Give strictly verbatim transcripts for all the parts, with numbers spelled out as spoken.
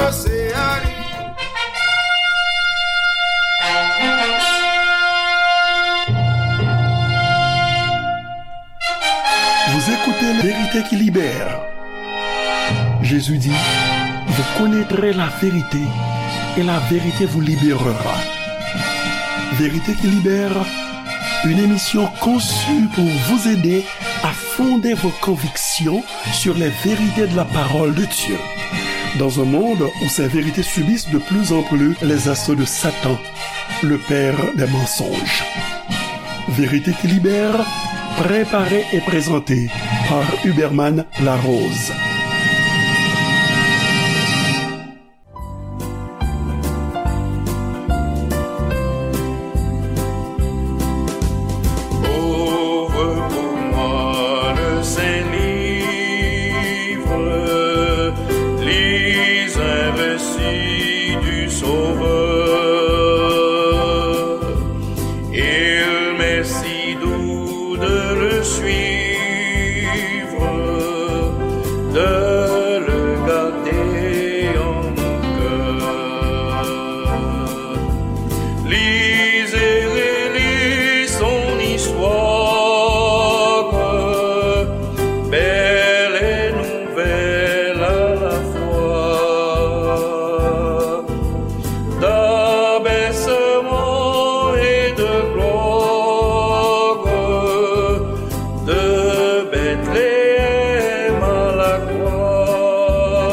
Se a li. Vous écoutez La Vérité qui libère. Jésus dit, vous connaîtrez la vérité et la vérité vous libérera. Vérité qui libère, une émission conçue pour vous aider à fonder vos convictions sur les vérités de la parole de Dieu. Dans un monde où ces vérités subissent de plus en plus les assauts de Satan, le père des mensonges. Vérité qui libère, préparée et présentée par Huberman Larose. Ouvre pour moi le Saint-Livre, lis un récit du Sauveur. Il m'est si doux de le suivre, de le garder en mon cœur. Lis et relis son histoire, belle et nouvelle à la fois. D'abaissement et de gloire, de Bethléem à la croix.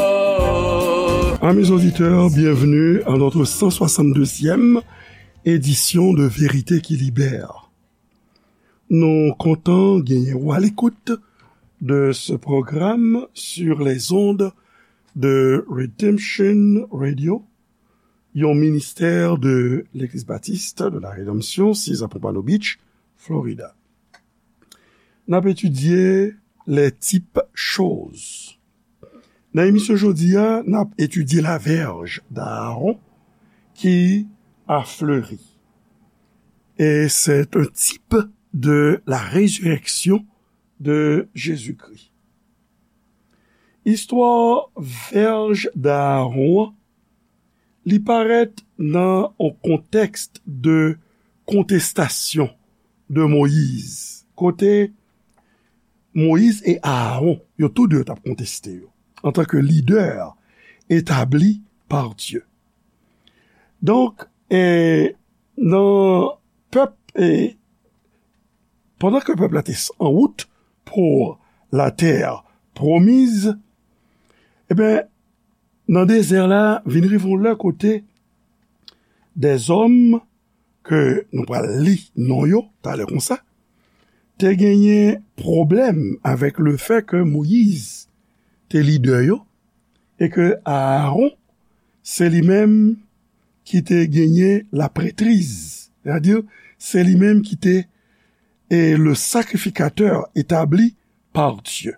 Amis auditeurs, bienvenue à notre cent soixante-deuxième édition de Vérité qui Libère. Nou kontan genyen w à l'écoute de ce programme sur les ondes de Redemption Radio, yon ministè de Legliz Batis de la Redanmsyon, six à Pompano Beach, Florida. N ap etidye les types choses. Nan emisyon jodi a, n ap etidye la verge d'Aaron qui a fleuri. Et c'est un type de la résurrection de Jésus-Christ. Istwa verge d'Aaron an, li parèt nan yon kontèks de kontestasyon de Moyiz, kote Moyiz e Aaron, yo tou de t ap konteste yo, antanke lidè etabli pa Dye. Donk, e, nan pèp, e, pandan ke pèp la te s-, an wout pou la terre promise, ebyen, nan dezè la, vin rive yon lè kote dèzòm ke nou pral li non yo talè konsa, te genyen pwoblèm avèk le fè ke Moyiz te lidè yo e ke Aaron se li menm ki te genyen laprètriz, sètadi se li menm ki te, e, le sacrificateur établi par Dieu.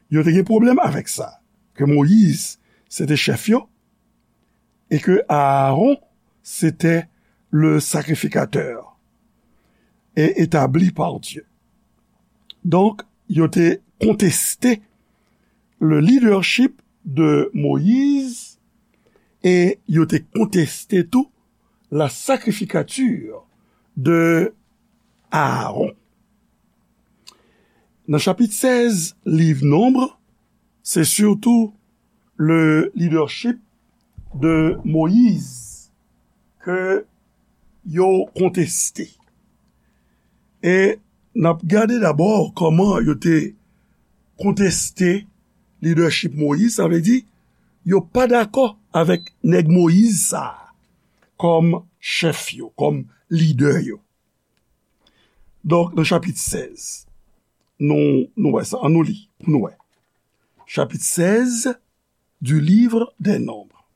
Yo te gen pwoblèm avèk sa, ke Moyiz se te chèf yo, e ke Aaron se te le sacrificateur et établi par Dieu. Donk, yo te konteste le leadership de Moïse e yo te konteste tou la sacrificature de Aaron. Nan chapit sèz liv Nonb, se sitou le leadership de Moïse ke yo konteste. E n ap gade dabò kòman yo te konteste leadership Moïse, sa vle di, yo pa dakò avèk nèg Moïse sa a kòm chèf yo, kòm lidè yo. Donk, nan chapit sèz, nou, nou wè sa, ann nou li, pou nou wè. Chapitre seize du livre des Nombres.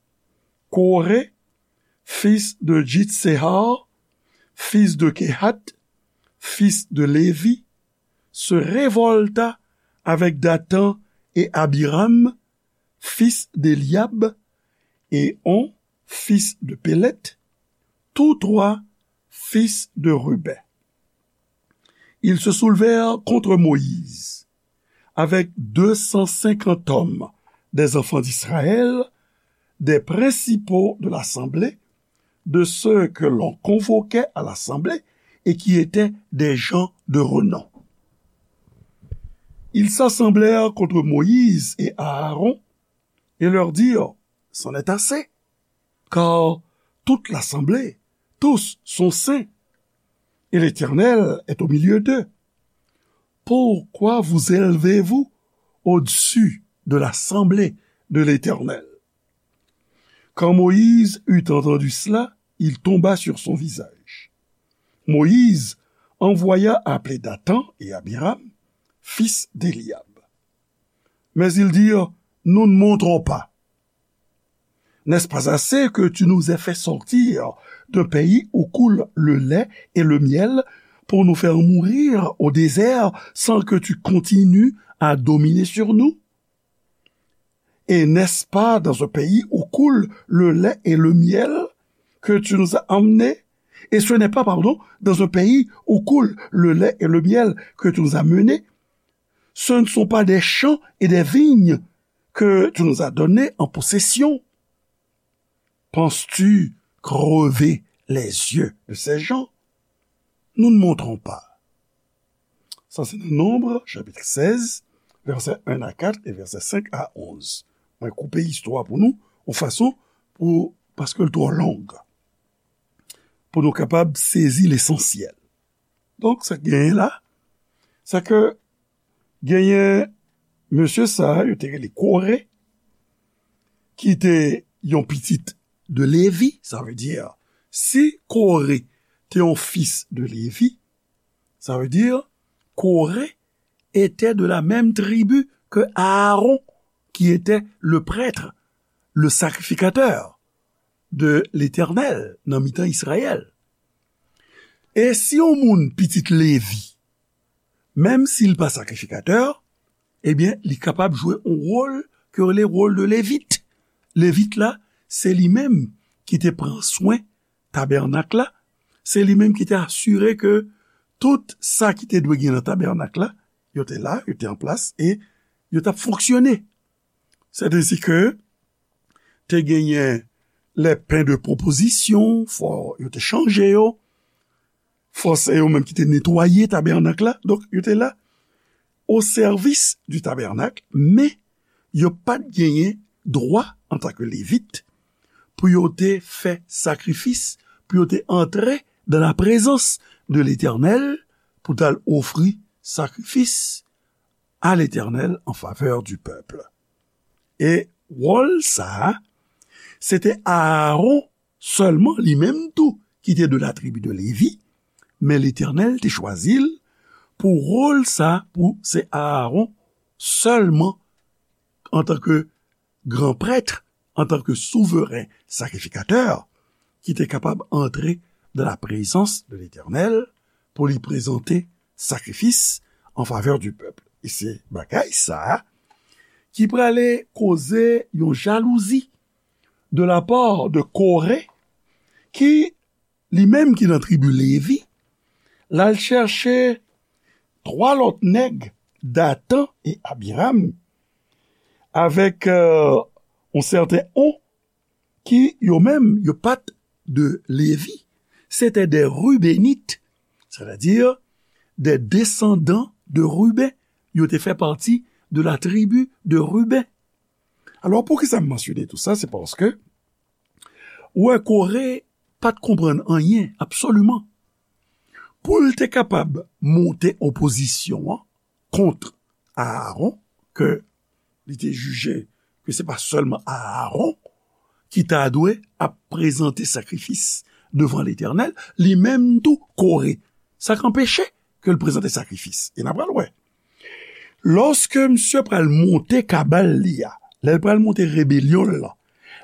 Coré, fils de Jitsehar, fils de Kehath, fils de Lévi, se révolta avec Dathan et Abiram, fils d'Éliab, et On, fils de Péleth, tous trois fils de Rubén. Ils se soulevèrent contre Moïse, avec deux cent cinquante hommes des enfants d'Israël, des principaux de l'assemblée, de ceux que l'on convoquait à l'assemblée et qui étaient des gens de renom. Ils s'assemblèrent contre Moïse et Aaron et leur dirent : C'en est assez, car toute l'assemblée, tous sont saints, et l'Éternel est au milieu d'eux. Pourquoi vous élevez-vous au-dessus de l'assemblée de l'Éternel ? Quand Moïse eut entendu cela, il tomba sur son visage. Moïse envoya appeler Dathan et Abiram, fils d'Éliab. Mais ils dirent : Nous ne monterons pas. N'est-ce pas assez que tu nous aies fait sortir d'un pays où coule le lait et le miel pour nous faire mourir au désert sans que tu continues à dominer sur nous ? Et n'est-ce pas dans un pays où coule le lait et le miel que tu nous as emmenés ? Et ce n'est pas, pardon, dans un pays où coule le lait et le miel que tu nous as menés. Ce ne sont pas des champs et des vignes que tu nous as donnés en possession. Penses-tu crever les yeux de ces gens ? Nous ne monterons pas. Sa se nan Nonb, chapit sèz, vèsè en a kat e vèsè senk a onz. Mwen koupe istwa pou nou, yon fason pou, paske l twò long, pou nou kapab sezi lesansyèl. Donk, sa k genyen la, se ke genyen mesye sa a, yo te rele Kore, ki te yon pitit de Levi, sa vle di, si Kore te yon fis de Levi, sa vle di, Kore était de la même tribu que Aaron, qui était le prêtre, le sacrificateur de l'Éternel nan mitan Izrayèl. E si yon moun pitit Levi, menm si l pa sakrifikatè, ebyen, li kapab jwe yon wòl ke yo rele wòl de Levit. Levit la, se li menm ki te pran swen tabènak la, se li menm ki te asire ke tout sa ki te dwe gen nan tabènak la, yo te la, yo te an plas e yo t ap fonksyone. Sètadi ke te genyen les pains de proposition, fò yo te chanje yo, fò se yo menm ki te netwaye tabènak la, donk yo te la o sèvis di tabènak, men yo pa t genyen dwa antanke Levit pou yo te fè sakrifis, pou yo te antre dans la présence de l'Éternel, pou t al ofri sakrifis à l'Éternel en faveur du peuple. E wòl sa a, se te Aaron sèlman, li menm tou, ki te de la tribi de Levi, men Letènèl te chwazi l pou wòl sa a, pou se Aaron sèlman, antanke gran prèt, antanke souveren sakrifikatè, ki te kapab antre dans la présence de l'Éternel pou li prezante sakrifis en faveur du peuple. E se bagay sa a ki prale koze yon jalouzi de la part de Kore, ki, li menm ki nan tribi Levi, l al chèche twa lòt nèg, Datan e Abiram, avèk, euh, yon sèten On, ki yo menm, yo pa t de Levi. Se te de Rubenit, sètadi de desandan de Ruben. Yo te fè pati de la tribi de Ruben. Alò, poukisa m mansyone tou sa? Se paske, ou wè, Kore pa t konprann anyen, absoliman. Pou l te kapab monte opozisyon an kont Aaron, ke li te jije ke se pa sèlman Aaron ki ta dwe ap prezante sakrifis devan Letènèl, li menm tou Kore. Sa k anpeche ke l prezante sakrifis? E n a pral wè. Lòske misye pral monte kabal li a, lè l pral monte rebelyon l lan,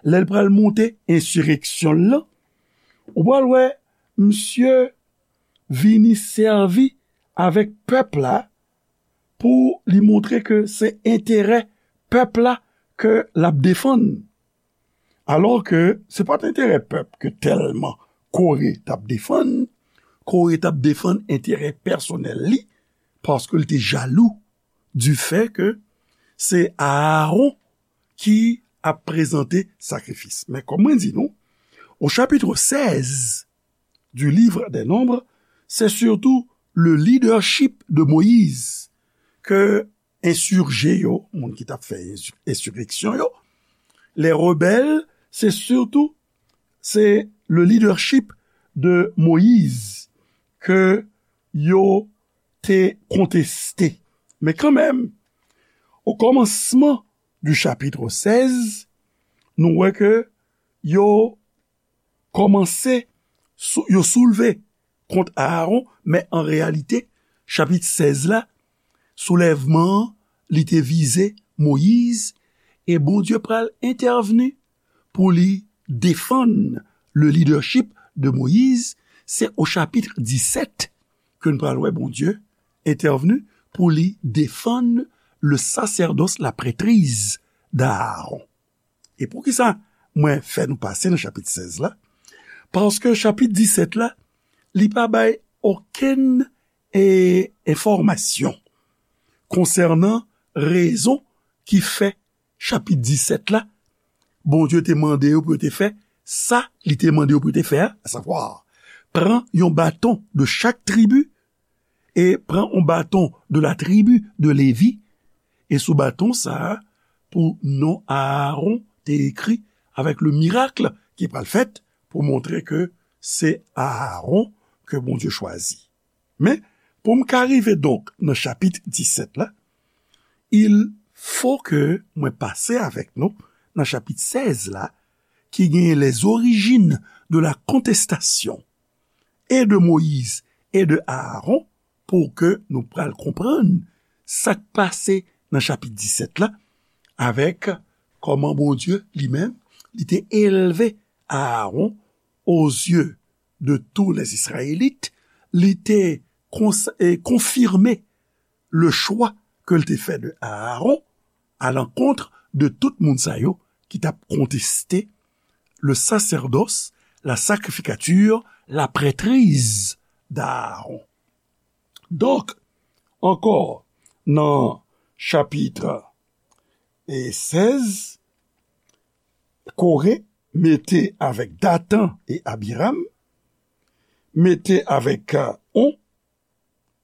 lè l pral monte ensireksyon l lan, ou pral wè misye vini sèvi avèk pèp la pou li montre ke se enterè pèp la ke l ap defann. Alò ke se pa t enterè pèp ke tèlman Kore t ap defann. Kore t ap defann enterè pèsonèl li, paske l te jalou du fait ke se Aaron ki ap prezante sakrifis. Men kòm mwen di nou, au chapitre seize du livre des Nombres, c'est surtout le leadership de Moïse ke ensije yo, moun ki t ap fè ensi- ensireksyon yo, les rebelles, c'est surtout, c'est le leadership de Moïse ke yo te konteste. Men kanmenm, au commencement du chapitre seize, nou wè ke yo kòmanse sou- yo soulve kont Aaron, men an reyalite, chapit sèz la, soulèvman an, li te vize Moyiz, e Bondye pral entèvni pou li defann le leadership de Moïse. Se o chapit disèt ke n pral wè Bondye entèvni pou li defann le sacerdoce, la prêtrise d'Aaron. E poukisa mwen fè nou pase nan chapit sèz la? Paske chapit disèt la, li pa bay okenn e, enfòmasyon konsènan rezon ki fè chapit disèt la, Bondye te mande yo pou yo te fè sa li te mande yo pou yo te fè a, asavwa, pran yon baton de chak tribi e pran yon baton de la tribu de Lévi, e sou baton sa a, pou non Aaron te ekri avèk le mirak ki pral fèt pou montre ke se Aaron ke Bondye chwazi. Men, pou m ka rive donk nan chapit disèt la, il faut que mwen pase avèk nou nan chapit sèz la, ki genyen les origines de la contestation et de Moïse et de Aaron, pou ke nou pral konprann sa k pase nan chapit disèt la, avèk kòman Bondye li menm, li te elve Aaron aux yeux de tous les Israélites, li te kons- e konfime le chwa ke l te fè de Aaron à l'encontre de tout moun sa yo ki t ap konteste le sacerdoce, la sacrificature, la prêtrise d'Aaron. Donk, ankò, nan chapit e sèz, Koré mete avèk Datan e Abiram, mete avèk, euh, On,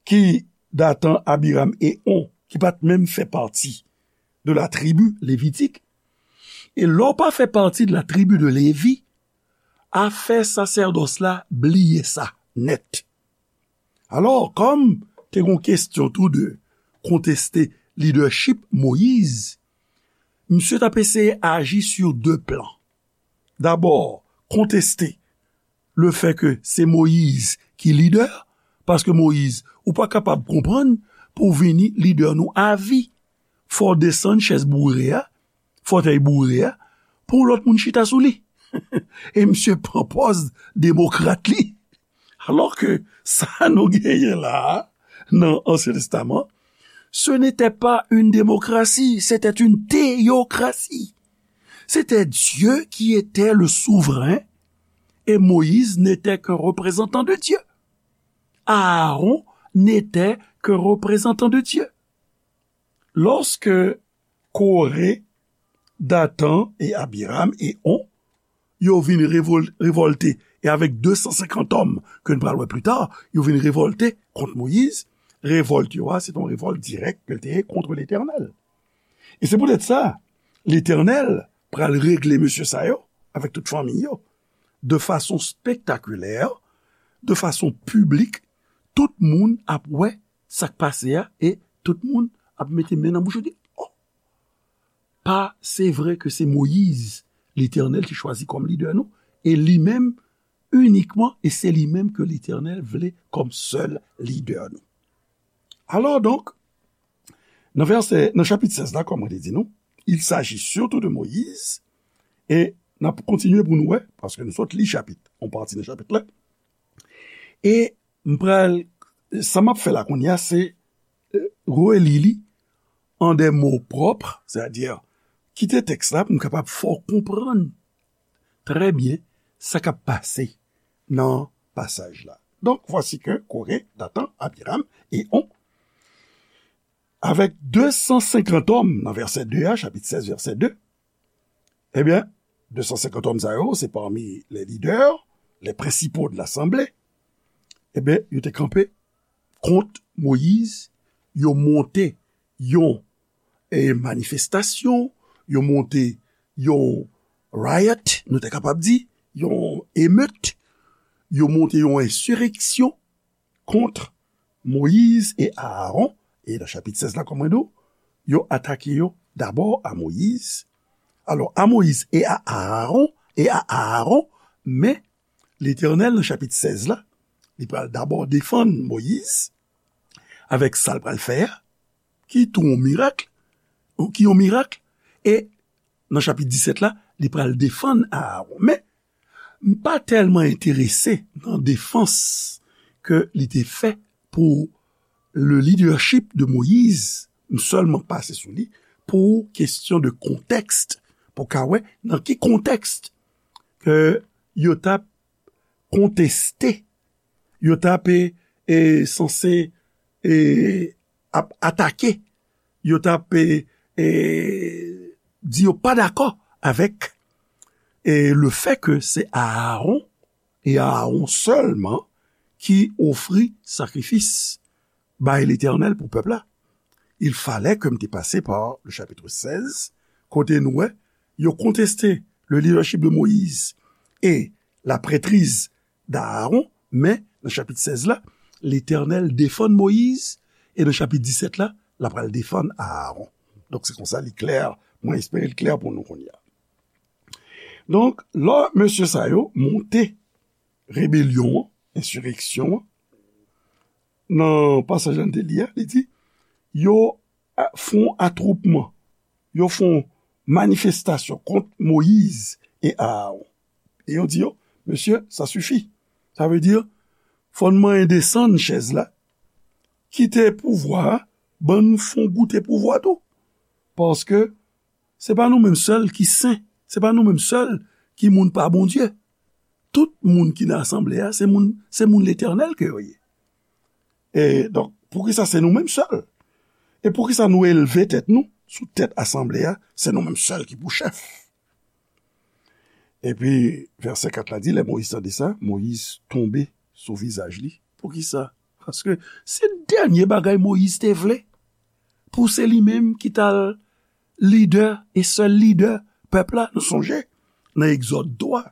ki Datan, Abiram e On, ki pa t menm fè pati de la tribi levitik. E lè w pa fè pati de la tribi de Lévi, afè sasèdòs la, bliye sa nèt. Alò, kòm te gon kesyon tou de konteste lidèchip Moyiz, misye t ap eseye aji sur de plan. Dabò, konteste le fè ke se Moyiz ki lidè, paske Moyiz, ou pa kapab konprann pou w vini lidè nou avi. Fò w desann chèz boure a, fòtèy boure a, pou yon lòt moun chita sou li. E misye pran pòz demokrat li. Alò ke sa nou genyen la a, nan Ansyen Testaman, ce n'était pas une démocratie, c'était une théocratie. C'était Dieu qui était le souverain et Moïse n'était qu'un représentant de Dieu. Aaron n'était qu'un représentant de Dieu. Lorsque Coré, Dathan et Abiram et On, yo vin revol- revòlte, e avèk de san senkant òm ke n pral wè pli ta, yo vin revòlte kont Moyiz. Revòlt yo a, se te yon revòlt dirèk ke l te ye kont Letènèl. E se poutèt sa, Letènèl pral regle mesye sa yo avèk tout fanmi yo, de fason spektakilè, de fason piblik, tout moun ap wè sa k pase a, e tout moun ap mete men nan bouch yo, di, "Oh, pa, se vre ke se Moyiz Letènèl te chwazi kòm lidè nou, e li menm inikman, e se li menm ke Letènèl vle kòm sèl lidè nou." Alò donk, nan vèsè, nan chapit sèz la, kòm mwen te di nou, il s'agit surtout de Moïse, e n ap kontinye pou nou wè, paske nou sot li chapit, yon pati nan chapit la. E m pral, sa m ap fè la kounye a, se, euh, reli li an de mo pwòp, sètadi kite tèks la pou m kapab fè w konprann trè byen sa k ap pase nan pasaj la. Donk, voici que Coré, Dathan, Abiram et On, avec deux cent cinquante hommes, nan vèsè de a, chapit sèz, vèsè de, Ebyen, de san senkant òm sa yo, se pami les leaders, les principaux de l'assemblée, ebyen, yo te kanpe kont Moyiz, yo monte yon e manifestasyon, yo monte yon riot, nou te kapab di, yon emet, yo monte yon ensireksyon kont Moyiz e Aaron, e nan chapit sèz la, kòm mwen di w, yo atake yo dabò a Moyiz. Alò, a Moyiz e a Aaron, e a Aaron, men Letènèl, nan chapit sèz la, li pral dabò defann Moyiz avèk sa l pral fè a, ki tou yon mirak, ki yon mirak, e nan chapit disèt la, li pral defann Aaron. Men, m pa tèlman enterese nan defans ke li te fè pou le leadership de Moïse, m sèlman pase sou li pou kesyon de kontèks, pou ka wè nan ki kontèks ke yo t ap konteste, yo t ap e, e, sanse e, ap atake, yo t ap e, e, di yo pa dakò avèk e, le fè ke se Aaron e Aaron sèlman ki ofri sakrifis bay Letènèl pou pèp la. Il fallait que m te pase par le chapitre seize, kote nou wè yo konteste le leadership de Moïse et la prêtrise d'Aaron, men nan chapit sèz la, Letènèl defann Moyiz, e nan chapit disèt la, l ap pral defann Aaron. Donk, se konsa li klè, mwen espere l klè pou nou kounye a. Donk, lè mesye sa yo monte rebelyon an, ensireksyon an, nan pasaj la n te li a, li di, yo a, fè yon atwoupman, yo fè yon manifestasyon kont Moyiz e Aaron. E yo di yo, mesye, sa sifi. Sa vle di, fò n manyen desann chèz la, kite pouvwa a, ban nou fè yon goute pouvwa tou. Paske se pa nou menm sèl ki sen, se pa nou menm sèl ki moun pa Bondye. Tout moun ki nan asanble a, se moun, se moun Letènèl ke yo ye. E donk, poukisa se nou menm sèl? E poukisa nou elve tèt nou sou tèt asanble a, se nou menm sèl ki pou chèf? Epi, vèsè kat la di, lè Moyiz tande sa, Moyiz tonbe sou vizaj li. Poukisa? Paske se dènye bagay Moyiz te vle. Pou se li menm ki t al lidè e sèl lidè pèp la, nou sonje, nan Egzòd twa.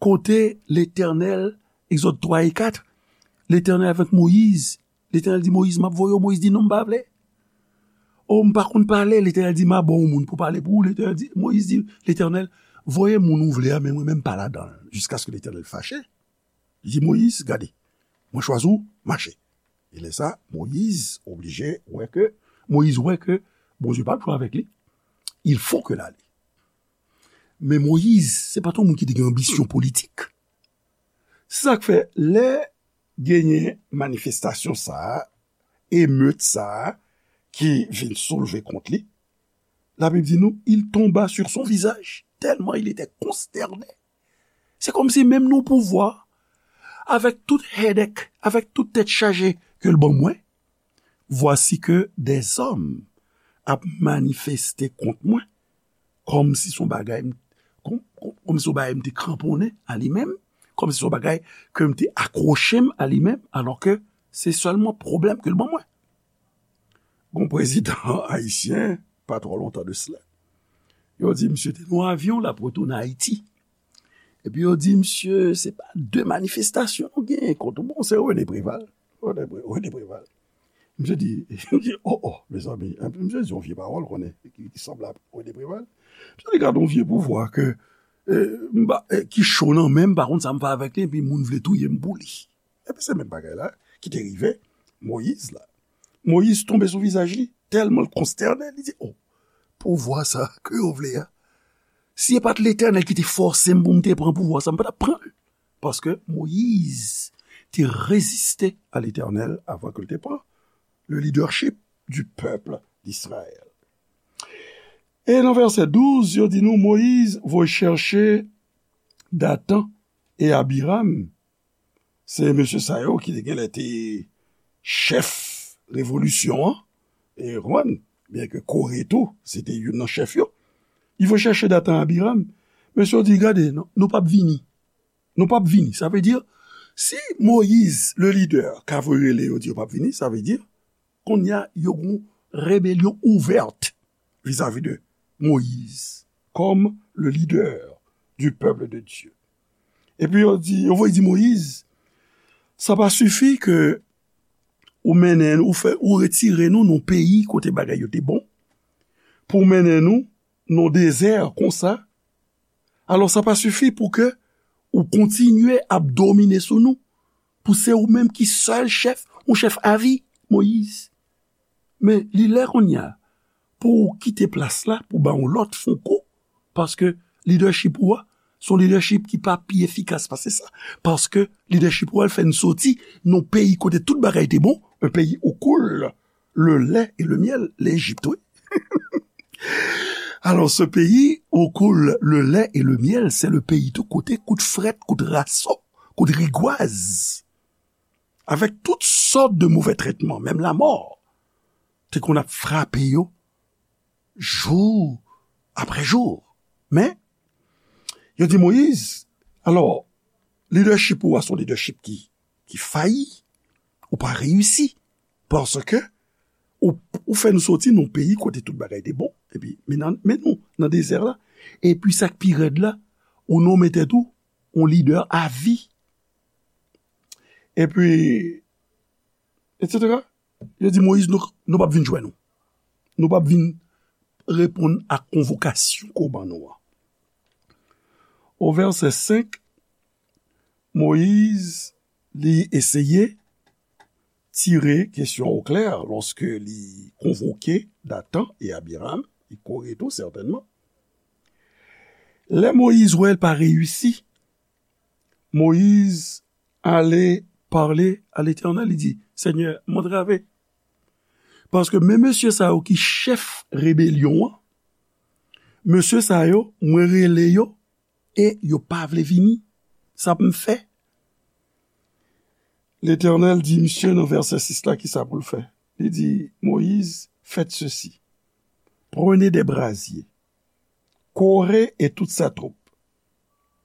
Kote Letènèl, Egzòd twa e kat, Letènèl avèk Moyiz, Letènèl di Moyiz, "M ap voye w." Moyiz di, "Non, m pa vle. O, m pa konn pale." Letènèl di, "M a ba w moun pou pale pou ou." Letènèl di, Moyiz di, "Letènèl, voye moun ou vle a, men mwen menm pa ladan l." Jiskaske Letènèl fache. Li di, "Moyiz, gade, mwen chwazi w, mache." E lè sa, Moyiz oblije wè ke, Moyiz wè ke Bondye p ap jwe avèk li. Il faut que l ale. Men Moyiz, se pa t yon moun ki te gen anbisyon politik. Se sa k fè, lè genyen manifestasyon sa a, emet sa a, ki vin soulve kont li, Labib di nou, il tomba sur son visage, tellement il était consterné. Se kòmsi menm nan pouvwa, avèk tout headache, avèk tout tèt chaje ke l ban mwen, voici que des hommes ap manifeste kont mwen, kòmsi se yon bagay m, kòm, kòm, kòmsi se yon bagay m te kranponnen a li menm, kòmsi se yon bagay ke m te akwoche m a li menm, alò ke se sèlman pwoblèm ke l ban mwen. Gon prezidan ayisyen, pa twò lontan de sila, yo di misye te nan yon avyon, l ap retounen Ayiti. Epi yo di misye, se pa de manifestasyon nou genyen kont ou. Bon, se René Préval. René Pré-, René Préval. Misye di, misye di, "Oh, oh, mezanmi." Epi misye di yon vye pawòl, konnen, ki, ki sanble a René Préval. Misye di, "Gade yon vye pouvwa ke, eh, m pa, eh, ki cho nan men m, pa konn sa m fè avèk li, epi moun vle touye m pou li." Epi se menm bagay la ki te rive Moyiz la. Moyiz tonbe sou vizaj li, tèlman l konstène, li di, "Oh, pouvwa sa ke yo vle a, si e pa t Letènèl ki te fòse m pou m te pran pouvwa sa, m pa t ap pran l." Paske Moyiz te reziste a Letènèl avan ke l te pran le leadership du peuple d'Israël. E nan vèsè douz, yo di nou, Moyiz voye chèche Datan e Abiram, se mesye sa yo ki te genlè te chèf revolisyon an, e konprann, byenke Kore tou, se te youn nan chèf yo. Li voye chèche Datan, Abiram. Mesye yo di, gade, non, nou p ap vini. Nou p ap vini. Sa vle di, si Moyiz, le lidè, ka voye rele yo di yo p ap vini, sa vle di, kounye a, yo gon rebelyon ouvèt vizavi de Moyiz, kòm le leader du peuple de Dieu. Epi yo di, yo voye di Moyiz, sa pa sifi ke ou mennen, ou fè, ou retire nou nan peyi kote bagay yo te bon, pou mennen nou nan dezè konsa. Alò, sa pa sifi pou ke ou kontinye ap domine sou nou, pou se ou menm ki sèl chèf, ou chèf avi, Moyiz. Men li lè kounye a pou w kite plas la, pou ba yon lòt fè yon kou, paske lidèchip ou a, se yon lidèchip ki pa pi efikas pase sa. Paske lidèchip ou a, l fè n soti nan peyi kote tout bagay te bon, un pays où coule le lait et le miel, Lejip, wi. Alors, ce pays où coule le lait et le miel, c'est le pays tou kote kout frèt, kout raso, kout rigwaz. Avec toutes sortes de mauvais traitements, même la mort. Te konn ap frape yo jou apre jou. Men, yo di Moyiz, alò, lidèchip ou a se yon lidèchip ki, ki fayi, ou pa reyisi, paske ou, ou fè nou soti nan peyi kote tout bagay te bon, epi men nan, men nou nan dezè la, epi sa k pi rèd la, ou nonmen tèt ou yon lidè avi, epi, etsetera. Yo di Moyiz, nou, nou p ap vin jwenn ou. Nou p ap vin reponn ak konvokasyon ke w ban nou an. O vèsè senk, Moyiz, li eseye tire kesyon o klè lòske li konvoke Datan e Abiram, e Kore tou, sètènman. Lè Moyiz wè l pa reyisi, Moyiz ale pale a Letènèl, li di, Senyè, m antrave. Paske men mesye sa yo ki chèf rebelyon an, mesye sa yo, mwen rele yo, e yo pa vle vini. Sa pou m fè? Letènèl di misye nan vèsè sis la, ki sa pou l fè? Li di, Moyiz, faites ceci. Prenez des brasiers. Coré et toute sa troupe.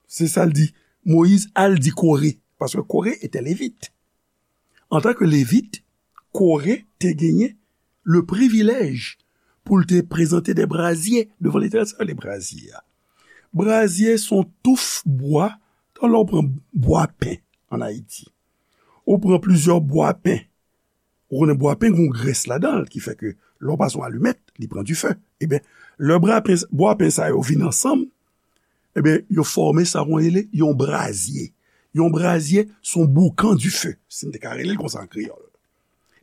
Se sa l di. Moyiz al di Kore, paske Kore etè Levit. Antanke Levit, Kore te genyen le privilèj pou l te prezante de brazye devan Letènèl. Sa yo rele brazye a? Brazye se yon touf bwa. Tan lè w pran bwa pen ann Ayiti, ou pran plizyè bwa pen, ou konnen bwa pen gen yon grès ladan l ki fè ke lè w pase yon alimèt, li pran dife. Ebyen, lè bwa pen, bwa pen sa yo vin ansanm, ebyen, yo fòme sa yo rele yon brazye. Yon brazye se yon boukan dife, si n te ka rele l konsa an kreyòl.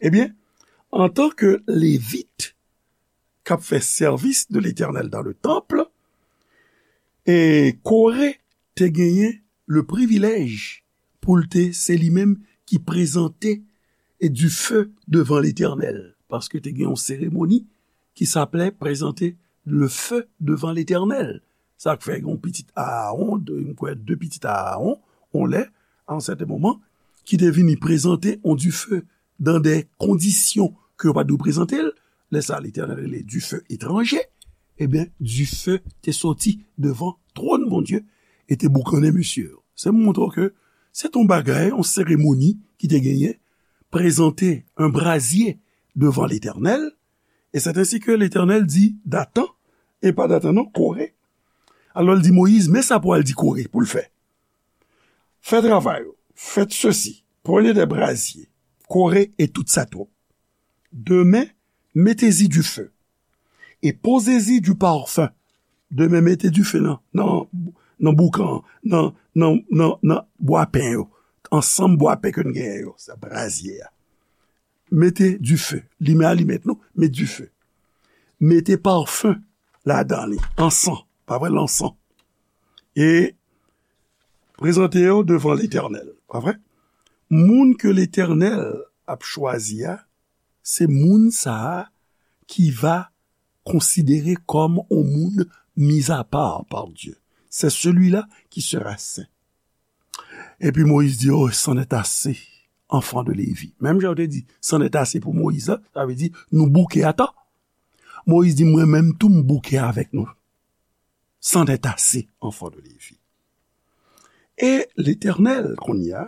Ebyen, antanke Levit k ap fè sèvis de Letènèl dans le temple, e Kore te genyen le privilèj pou l te, se li menm ki prezante e dife devan Letènèl, paske te gen yon seremoni ki saplè prezante le feu devant l'Éternel. Sa k fè yon pitit Aawon, de, m kwè de pitit Aawon, on lè, a yon sèten moman, ki te vini prezante on dife dan de kondisyon ke yo pa t dwe prezante l. Lè sa, Letènèl rele dife etranje. Ebyen, dife te soti devan twòn Bondye e te boukannen mesye yo. Se montre w ke se t on bagay, on seremoni ki te genyen, prezante un brazye devan Letènèl, e c'est ainsi que Letènèl di Datan, e pa Datan non, Kore. Alò, l di Moyiz, men sa pou al di Kore pou l fè. Fè travay ou, faites ceci, prenez des brasiers, Coré et toute sa troupe. Demain, mettez-y du feu et posez-y du parfum. Demain, mete dife nan, nan, nan boukan, nan, nan, nan, nan bwa pen yo, ansanm bwa pen ke n genyen yo, sa brazye a. Mete dife, limen alimèt nou, met dife. Mete parfum ladan li, ansan, pa vre, lansan. E prezante yo devan Letènèl, pa vre? Moun ke Letènèl ap chwazi a, se moun sa a ki va konsidere kòm on moun mis à part par Dieu. C'est celui-là qui sera saint. Epi Moyiz di, oh, c'en est assez, enfants de Lévi. Menm jan yo te di, c'en est assez pou Moyiz la, sa vle di, nou bouke ata. Moyiz di, mwen menm tou, m bouke avèk nou. C'en est assez, enfants de Lévi. E Letènèl, kounye a,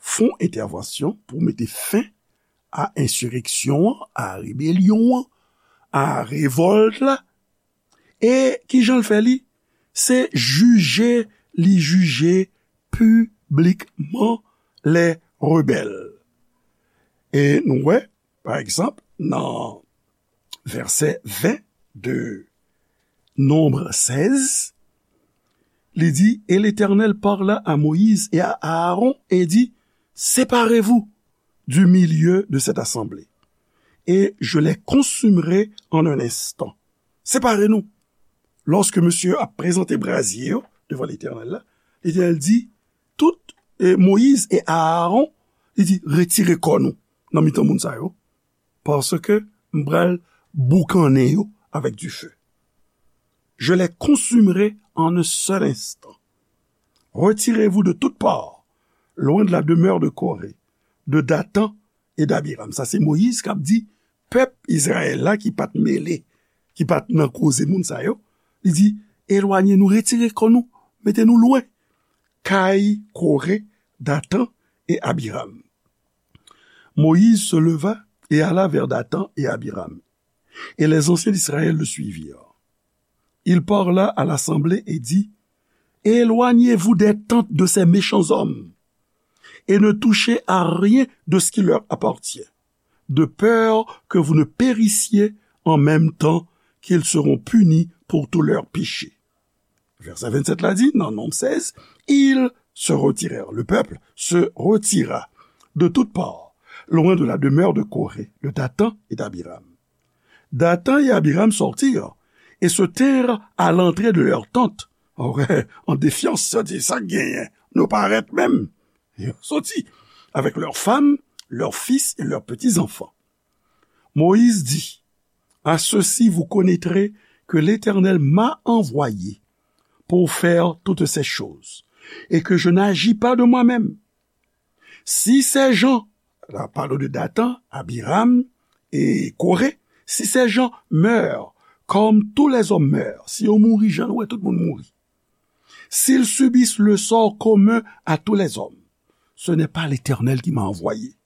fè yon entèvansyon pou mete fen a ensireksyon an, a rebelyon an, a revòlt la. E kijan l fè li? Se jije, li jije piblikman lè rebèl. E nou wè, pa egzanp, nan vèsè ven de Nonb sèz, li di, Et l'Éternel parla à Moïse et à Aaron et dit, Séparez-vous du milieu de cette assemblée, et je les consumerai en un instant. Separe nou. Lòske misye ap prezante brazye yo devan Letènèl la, Letènèl di, tout, e, Moyiz e Aaron, li di, retire kò nou nan mitan moun sa yo, paske m pral boukannen yo avèk dife. Je les consumerai en un seul instant. Retirez-vous de toute part, loin de la demeure de Corée, de Dathan et d'Abiram. Sa se Moyiz k ap di pèp Izrayèl la ki pa t mele, ki pa t nan koze moun sa yo. Li di, elwanye nou, retire kò nou, mete nou lwen kay Kore, Dathan et Abiram. Moïse se leva et alla vers Dathan et Abiram, et les anciens d'Israël le suivirent. Il parla à l'assemblée et dit, Éloignez-vous des tentes de ces méchants hommes, et ne touchez à rien de ce qui leur appartient, de peur que vous ne périssiez en même temps qu'ils seront punis pour tous leurs péchés. Vèsè vennsèt la di, nan Nonb sèz, ils se retirèrent, le peuple se retira de toutes parts, loin de la demeure de Corée, de Dathan et d'Abiram. Dathan et Abiram sortirent et se tinrent à l'entrée de leur tente. An défyans, sa di, sa k genyen, nou parèt menm. Yo soti avec leurs femmes, leurs fils et leurs petits-enfants. Moïse dit, À ceci vous connaîtrez que l'Éternel m'a envoyé pour faire toutes ces choses, et que je n'agis pas de moi-même. Si ces gens, la parle de Dathan, Abiram et Corée, si ces gens meurent comme tous les hommes meurent, si yo mouri jan nou wè tout moun mouri, s'ils subissent le sort commun à tous les hommes, ce n'est pas l'Éternel qui m'a envoyé.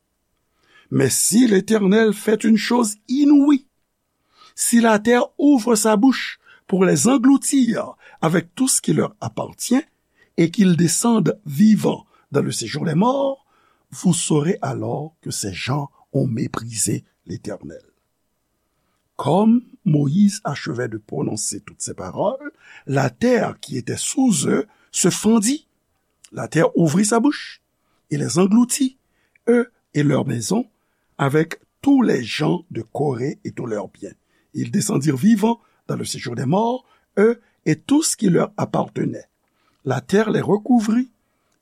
Mais si l'Éternel fait une chose inouïe, si la terre ouvre sa bouche pour les engloutir avec tout ce qui leur appartient, et qu'ils descendent vivants dans le séjour des morts, vous saurez alors que ces gens ont méprisé l'Éternel. Comme Moïse achevait de prononcer toutes ces paroles, la terre qui était sous eux se fendit. La terre ouvrit sa bouche et les engloutit, eux et leurs maisons, avec tous les gens de Corée et tous leurs biens. Ils descendirent vivants dans le séjour des morts, eux et tout ce qui leur appartenait. La terre les recouvrit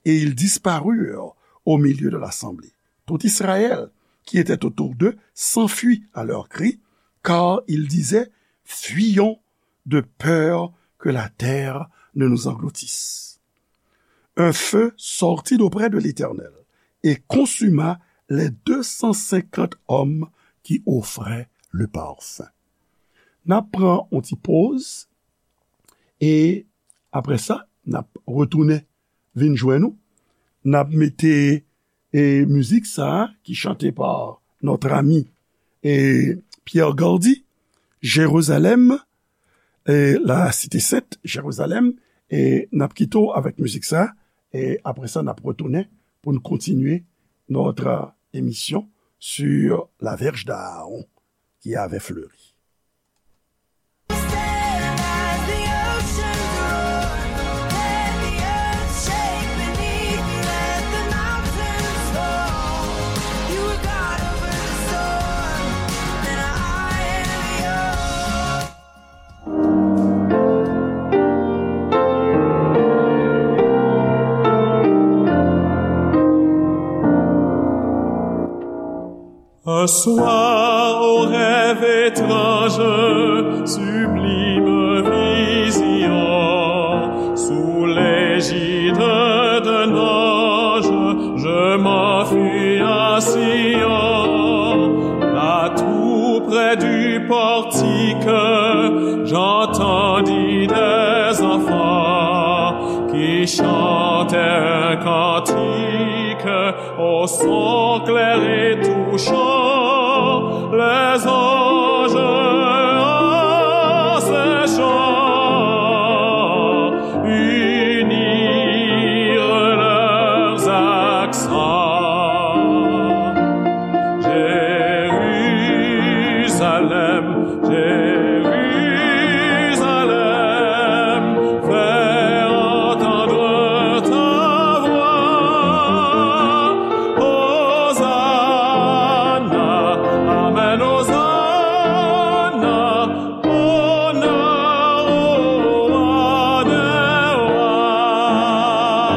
et ils disparurent au milieu de l'assemblée. Tout Israël qui était autour d'eux s'enfuit à leur cri, car ils disaient, Fuyons de peur que la terre ne nous engloutisse. Un feu sortit d'auprès de l'Éternel et consuma les deux cent cinquante hommes qui offraient le parfum. N ap pran yon ti poz e apre sa, n ap retounen vin jwenn nou. N ap mete e mizik sa a ki chante pa notre ami e Pierre Gardy, Jérusalem, e la Cité Sainte, Jérusalem, e n ap kite w avèk mizik sa a, e apre sa, n ap retounen pou n kontinye notre émission sur la verge d'Aaron qui avait fleuri. Un soir, au rêve étrange, sublime vision, sous l'égide d'un ange, je m'enfuis à Sion, là tout près du portique, j'entendis des Ils chantèrent un cantique au son clair et touchant, les anges en ces chants unirent leurs accents. Jérusalem, Jérusalem, fais entendre ta voix. Hosanna, Amen, Hosanna, honneur au Roi des rois.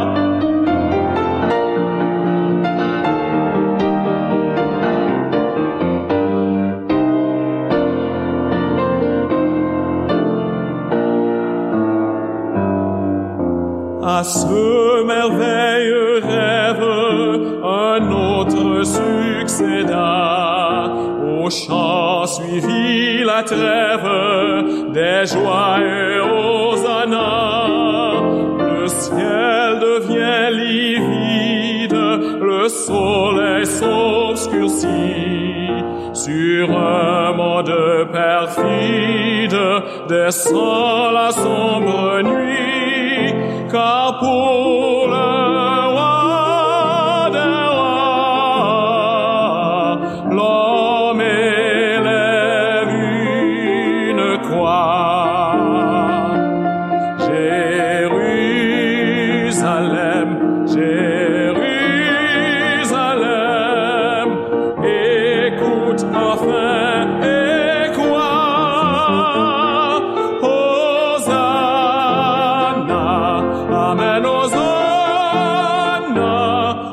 À ce merveilleux rêve, un autre succéda. Au chant suivit la trêve des joyeux Hosanna. Le ciel devient livide, le soleil s'obscurcit. Sur un monde perfide descend la sombre nuit, car pour le Roi des rois, l'homme élève une croix. Jérusalem, Jérusalem, écoute enfin et crois. Hosanna, Amen, Hosanna,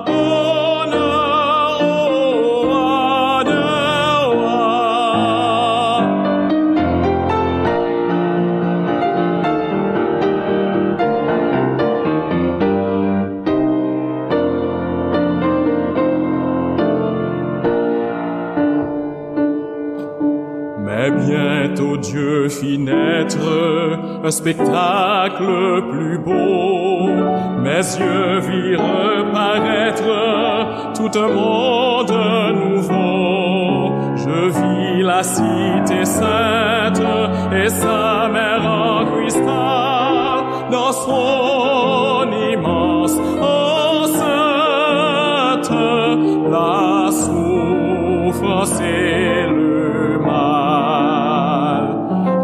honneur au Roi des rois. Mais bientôt Dieu fit naître un spectacle plus beau. Mes yeux virent paraître tout un monde nouveau. Je vis la cité sainte et sa mer en cristal. Dans son immense enceinte, la souffrance et le mal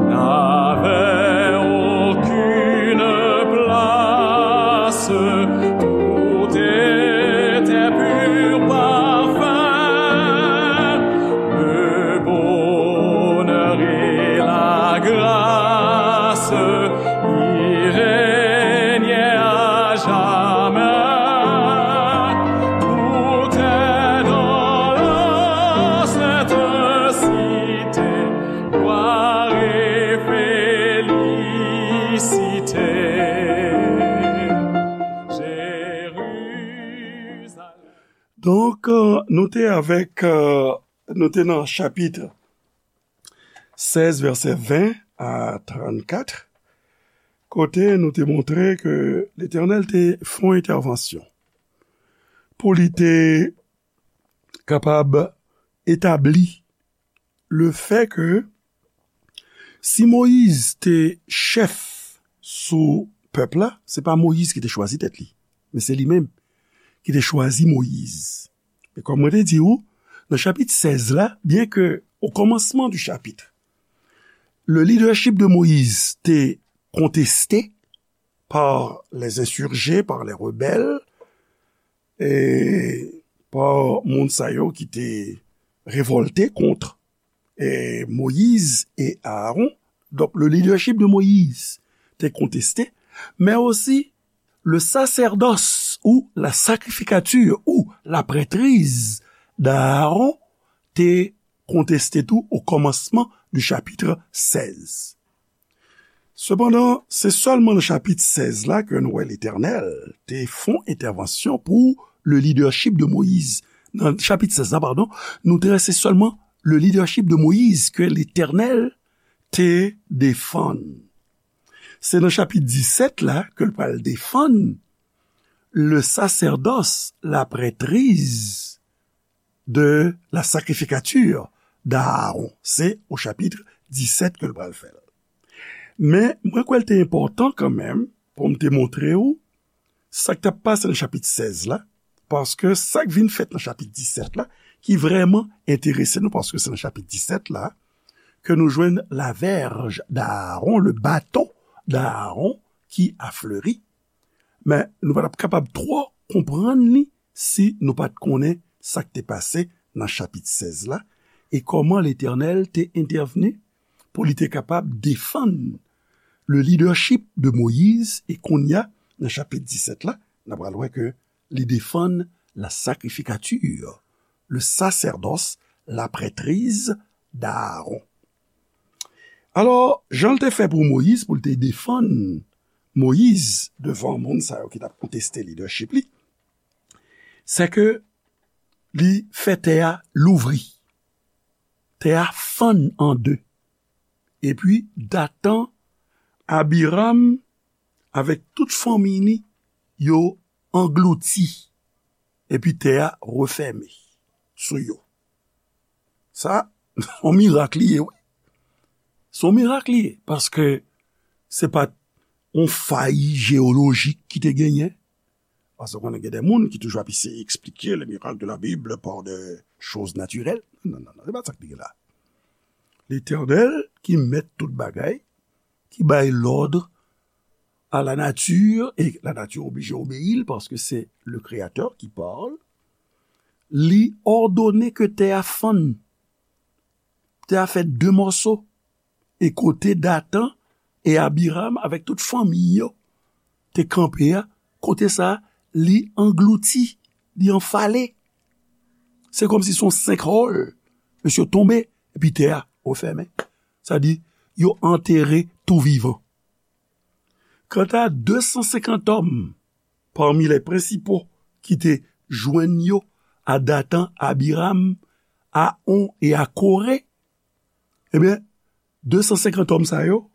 n'avaient aucune place. Tout était pur parfum. Le bonheur et la grâce y régnaient à jamais. Tout est dans la sainte cité, gloire et félicité. Jérusalem. Donk, euh, nou te avèk, euh, nou te nan chapit sèz, vèsè ven a trannkat, kote nou te montre ke Letènèl te fè yon entèvansyon pou li te kapab etabli le fè ke si Moyiz te chèf sou pèp la, se pa Moyiz ki te chwazi tèt li, men se li menm ki te chwazi Moyiz. E kòm mwen te di w, nan chapit sèz la, byen ke o kòmansman di chapit, le leadership de Moïse te konteste par les insurgés, par les rebelles, e pa moun sa yo ki te revòlte kont, e, Moyiz e Aaron. Donk, le leadership de Moïse te konteste, men osi le sacerdoce ou la sacrificature ou la prêtrise d'Aaron te konteste tou o kòmansman di chapit sèz. Sepandan, se sèlman nan chapit sèz la ke nou wè Letènèl te fè yon entèvansyon pou le leadership de Moïse. Nan chapit sèz la, padon, nou te wè se sèlman le leadership de Moïse ke Letènèl te defann. Se nan chapit disèt la ke l pral defann le sacerdoce, la prêtrise de la sacrificature d'Aaron. Se o chapit disèt ke l pral fè l. Men, mwen kwè l te enpòtan kanmenm pou m te montre w sa k t ap pase nan chapit sèz la, paske sa k vin fèt nan chapit disèt la, ki vrèman enterese nou, paske se nan chapit disèt la ke nou jwenn la verge d'Aaron, le bâton d'Aaron qui a fleuri. Men nou pa t ap kapab twò konprann li si nou pa t konnen sa k te pase nan chapit sèz la, e kòman Letènèl te entèvni pou li te kapab defann le leadership de Moïse, e kounye a, nan chapit disèt la, n ap pral wè ke li defann la sacrificature, le sacerdoce, la prêtrise d'Aaron. Alò, jan l te fè pou Moyiz, pou l te defann Moyiz devan moun sa yo ki t ap konteste leadership li, se ke li fè tè a louvri. Tè a fann an de. Epi Datan, Abiram, avèk tout fanmi li, yo anglouti. Epi tè a refèmen sou yo. Sa, se yon mirak li ye, wi. Se yon mirak li ye, paske se pa t yon fay jeyolojik ki te genyen. Paske konnen gen de moun ki toujou ap eseye eksplike le miracle de la Bible par de choses naturelles. Non, non, non, se pa sa k te gen la. Letènèl ki mèt tout bagay, ki bay lòd à la nature, et la nature oblije obeyi l, paske se le Créateur qui parle, li òdone ke tè a fann. Tè a fè de mòso. E kote Datan e Abiram avèk tout fanmi yo te kanpe a, kote sa a, li anglouti, li anfale. Se kòmsi se yon sinkhole. Mesye tonbe, epi tè a refèmen. Sa di, yo antere tou vivan. Kanta de san senkant òm, parmi les principaux ki te jwenn yo, a Datan, Abiram, a On e a Kore, ebyen, de san senkant òm sa yo,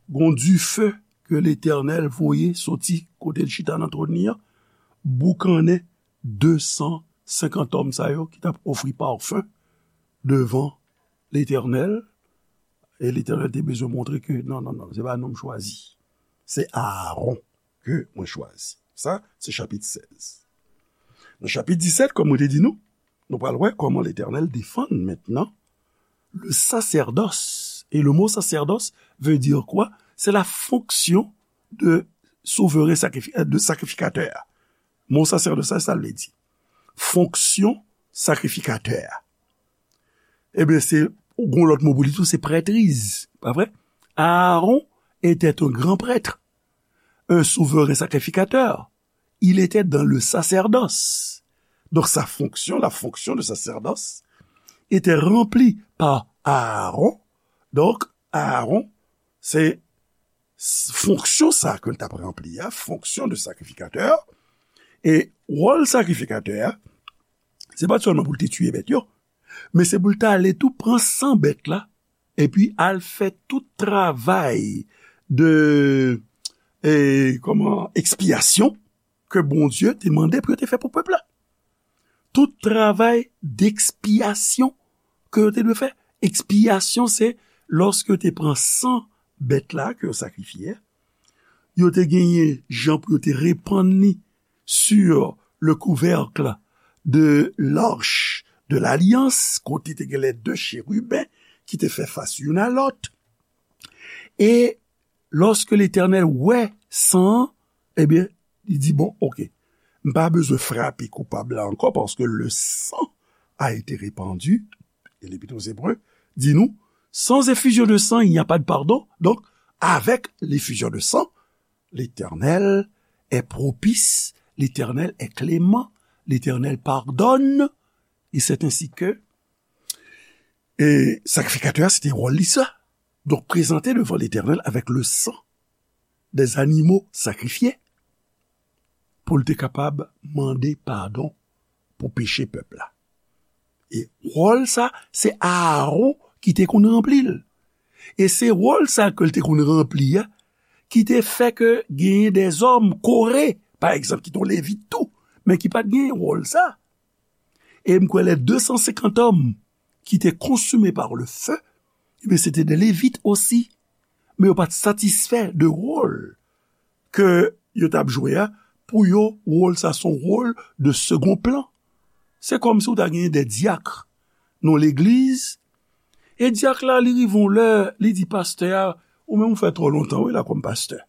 gon dife ke Letènèl voye soti kote l chita nan twòn li an, boukannen de san senkant òm sa yo ki t ap ofri pafen devan Letènèl, e Letènèl te bezwen montre ke non, non, non, se pa nou m chwazi. Se Aaron ke mwen chwazi. Sa, se chapit sèz. Nan chapit disèt, kòm mwen te di nou, nou pral wè kòman Letènèl defann mentnan le sacerdoce. Et le mot sacerdoce veut dire quoi? C'est la fonction de souverain sacrifi-, de sacrificateur. Mo sacerdoce, sa, sa l vle di? Fonksyon sakrifikatè a. Ebyen, se, gon lòt mo pou li tou, se prêtrise, pa vre? Aaron était un grand prêtre, un souverain sacrificateur. Il était dans le sacerdoce. Donc, sa fonction, la fonction de sacerdoce, était remplie par Aaron. Donc, Aaron, se s-, fonksyon sa ke l t ap ranpli a, fonksyon de sakrifikatè, e wòl sakrifikatè a, se pa t sèlman pou l te tiye bèt yo, men se pou l t ale tou pran san bèt la, epi al fè tout travay de, e, kòman, ekspyasyon ke Bondye te mande pou yo te fè pou pèp la. Tout travay dekspyasyon ke yo te dwe fè. Ekspyasyon, se lòske yo te pran san bèt la ke yo sakrifye a, yo te genyen jan pou yo te repann li sur le couvercle de l'arche de l'alliance, kote te gen les deux chérubins ki te fè fas youn a lòt. E lòske Letènèl wè san an, ebyen, li di, bon, oke, m pa bezwen frape koupab la ankò, paske le sang a été répandu. E L'Épître aux Hébreux di nou, sans effusion de sang, il n'y a pas de pardon. Donc, avec l'effusion de sang, l'Éternel est propice, l'Éternel est clément, l'Éternel pardonne, et c'est ainsi que, e sakrifikatè a, se te wòl li sa. Donk, prezante devan Letènèl avèk le sang des animaux sacrifiés pou l te kapab mande padon pou peche pèp la. E wòl sa, se Aaron ki te konn ranpli l. E se wòl sa ke l te konn ranpli a, ki te fè ke genyen dèzòm Kore, pa egzanp, ki te yon Levit tou, men ki pa t genyen wòl sa. E m kwè les deux cent cinquante hommes qui étaient consumés par le feu, ebyen, se te de Levit osi. Men yo pa t satisfè de wòl ke yo t ap jwe a, pou yo, wòl sa se yon wòl de second plan. Se kòmsi w ta genyen de dyak nan legliz, e dyak la, li rive yon lè, li di pastè a, ou menm ou fè twò lontan, wi, la kòm pastè.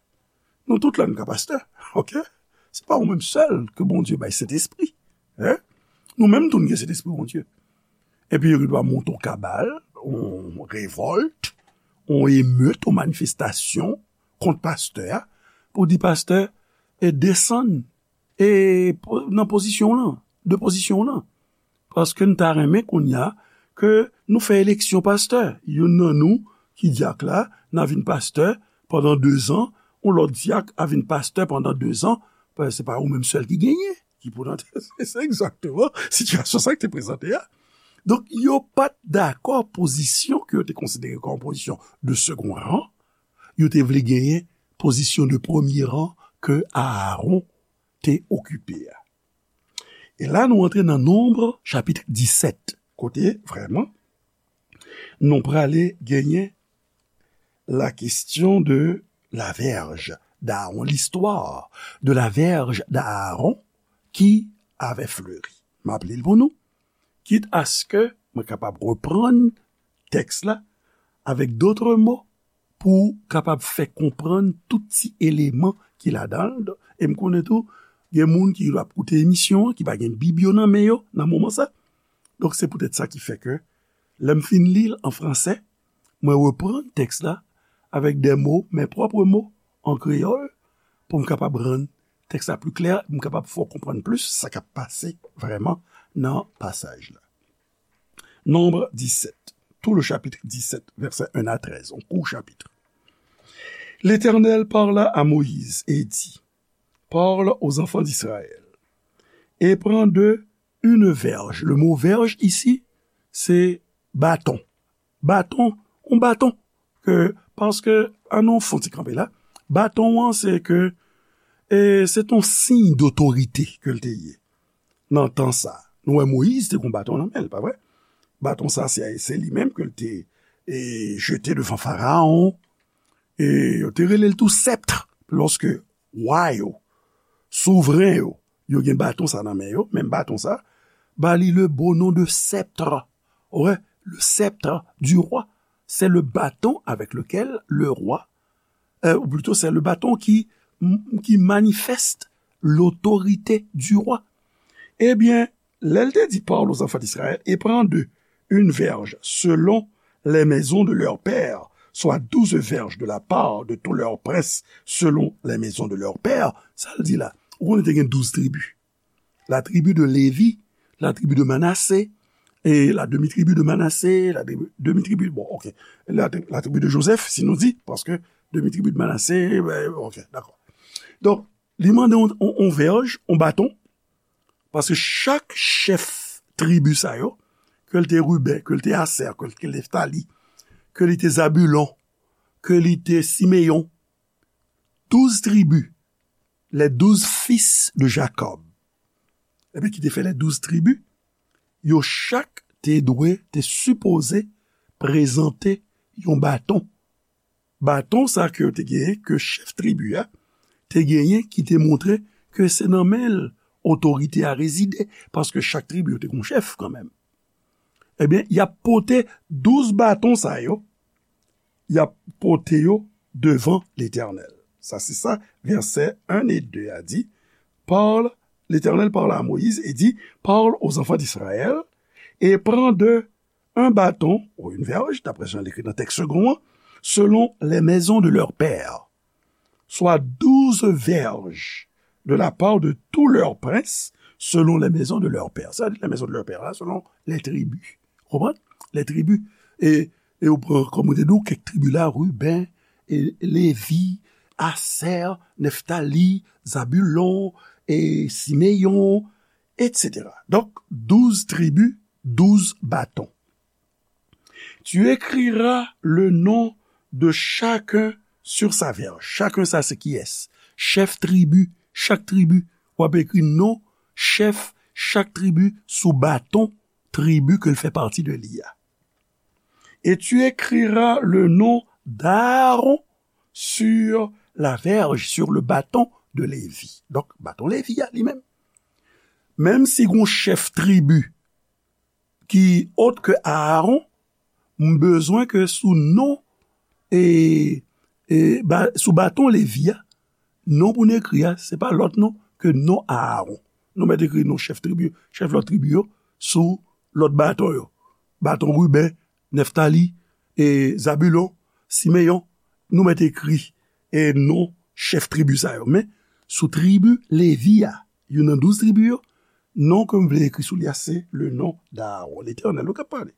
Nou tout la, nou ka pastè, oke? Se pa ou menm sèl ke Bondye bay Sentespri, en? Nou menm tou, nou gen Sentespri Bondye. Epi yo gendwa monte yon kabal, yon revòlt, yon emet, yon manifestasyon kont pastè a, pou di pastè, e desann, e po- nan pozisyon w lan, de pozisyon w lan. Paske n ta renmen kounye a ke nou fè eleksyon pastè. Youn nan nou ki dyak la, n a vin pastè pandan dezan, yon lòt dyak a vin pastè pandan dezan, paske se pa ou menm sèl ki genyen, ki pou nan se egzakteman sitiyasyon sa ki te prezante a. Donk, yo pa t dakò pozisyon ke yo te konsidere kòm pozisyon de second rang, yo te vle genyen pozisyon de premye rang ke Aaron te okipe a. E la, nou antre nan Nonb, chapit disèt, kote, vrèman, nou prale genyen la question de la verge d'Aaron, l'histoire de la verge d'Aaron qui avait fleuri. M ap li l pou nou, kit aske mwen kapab reprann tèks la avèk dòt mo pou kapab fè konprann tout ti eleman ki ladan l. E m konnen tou, gen moun ki ap koute emisyon an, ki pa gen Bib yo nan men yo nan moman sa. Donk, se poutèt sa ki fè ke, lè m fin li l an fransè, mwen reprann tèks la avèk de mo, mes propres mots, an kreyòl, pou m kapab rann tèks la pli klè, pou m kapab fè w konprann plis sa k ap pase vrèman nan pasaj la. Nonb disèt, tout le chapitre dix-sept, versets un à treize, un court chapitre. L'Éternel parla à Moïse et dit, parle aux enfants d'Israël et prends d'eux une verge. Le mot verge ici, c'est bâton. Bâton, un bâton. Ke, paske, an nou fon ti kanpe la, bâton an, se ke, e, se ton siy dotorite ke l te ye. Nan tan sa, nou wè Moyiz te gon baton nan men l, pa vre? Baton sa, se, se li menm ke l te, e, jete devan Farawon. E yo te rele l tou sèpt, lòske wa yo, souvren yo, yo gen baton sa nan men yo, menm baton sa, ba li le beau nom de sceptre. Ouais, le sceptre du roi. C'est le bâton avec lequel le roi, euh, ou plutôt c'est le bâton qui, qui manifeste l'autorité du roi. Ebyen, lè l te di, parle aux enfants d'Israël et prends d'eux une verge selon les maisons de leurs pères, soit douze verges de la part de tous leurs princes selon les maisons de leurs pères, sa l di la, ou konnen te gen douz tribi. La tribu de Lévi, la tribu de Manassé, et la demi-tribu de Manassé, la demi-tribu, bon, ok, la, la tribu de Joseph, si nou di, paske demi-tribu de Manassé, ben, ok, dakò. Donk, li mande yon, yon, yon vèj, yon baton, paske chak chèf tribi sa yo, ke l te Riben, ke l te Asè, ke l te Neftali, ke li te Zabilon, ke li te Simeyon, douz tribi, les douze fils de Jacob. Ebyen, ki te fè les douze tribi, yo chak te dwe, te sipoze prezante yon baton. Baton sa ke yo te genyen, ke chèf tribi a te genyen, ki te montre ke se nan men l otorite a rezide, paske chak tribi yo te gon chèf kanmenm. Ebyen, y ap pote douz baton sa yo, y ap pote yo devan Letènèl. Sa se sa, vèsè un et deux a di, parle, Letènèl parle à Moïse et dit, parle aux enfants d'Israël et prends d'eux un bâton ou une verge, d'après jan l ekri nan tèks segon an, selon les maisons de leurs pères, soit douze verges de la part de tous leurs princes, selon les maisons de leurs pères. Sa di les maisons de leurs pères la, selon les tribus. Konprann? Les tribus. E, e ou pran, kòm ou te di, kèk tribi la, Riben, e Levi, Asè, Neftali, Zabilon, e Simeyon, et cetera. Donk, douz tribi, douz baton. Tu écriras le nom de chacun sur sa verge. Chacun sa se kiyès? Chèf tribi, chak tribi. W ap ekri non chèf chak tribi sou baton tribi ke l fè pati de li a. Et tu écriras le nom d'Aaron sur la verge, sur le bâton de Lévi. Donk, baton Levi a li menm. Menm si gon chèf tribi ki ot ke Aaron, m bezwen ke sou non, e, e, ba, sou baton Levi a, non pou n ekri a, se pa lòt non ke non Aaron. Nou mèt ekri non chèf tribi, chèf lòt tribi yo, sou lòt baton yo. Baton Riben, Neftali, e Zabilon, Simeyon, nou mèt ekri, e non chèf tribi sa yo. Men, sou tribi Levi a, youn nan douz tribi yo, non ke m vle ekri sou li a, se le nom d'Aaron. Letènèl, ou k ap pale.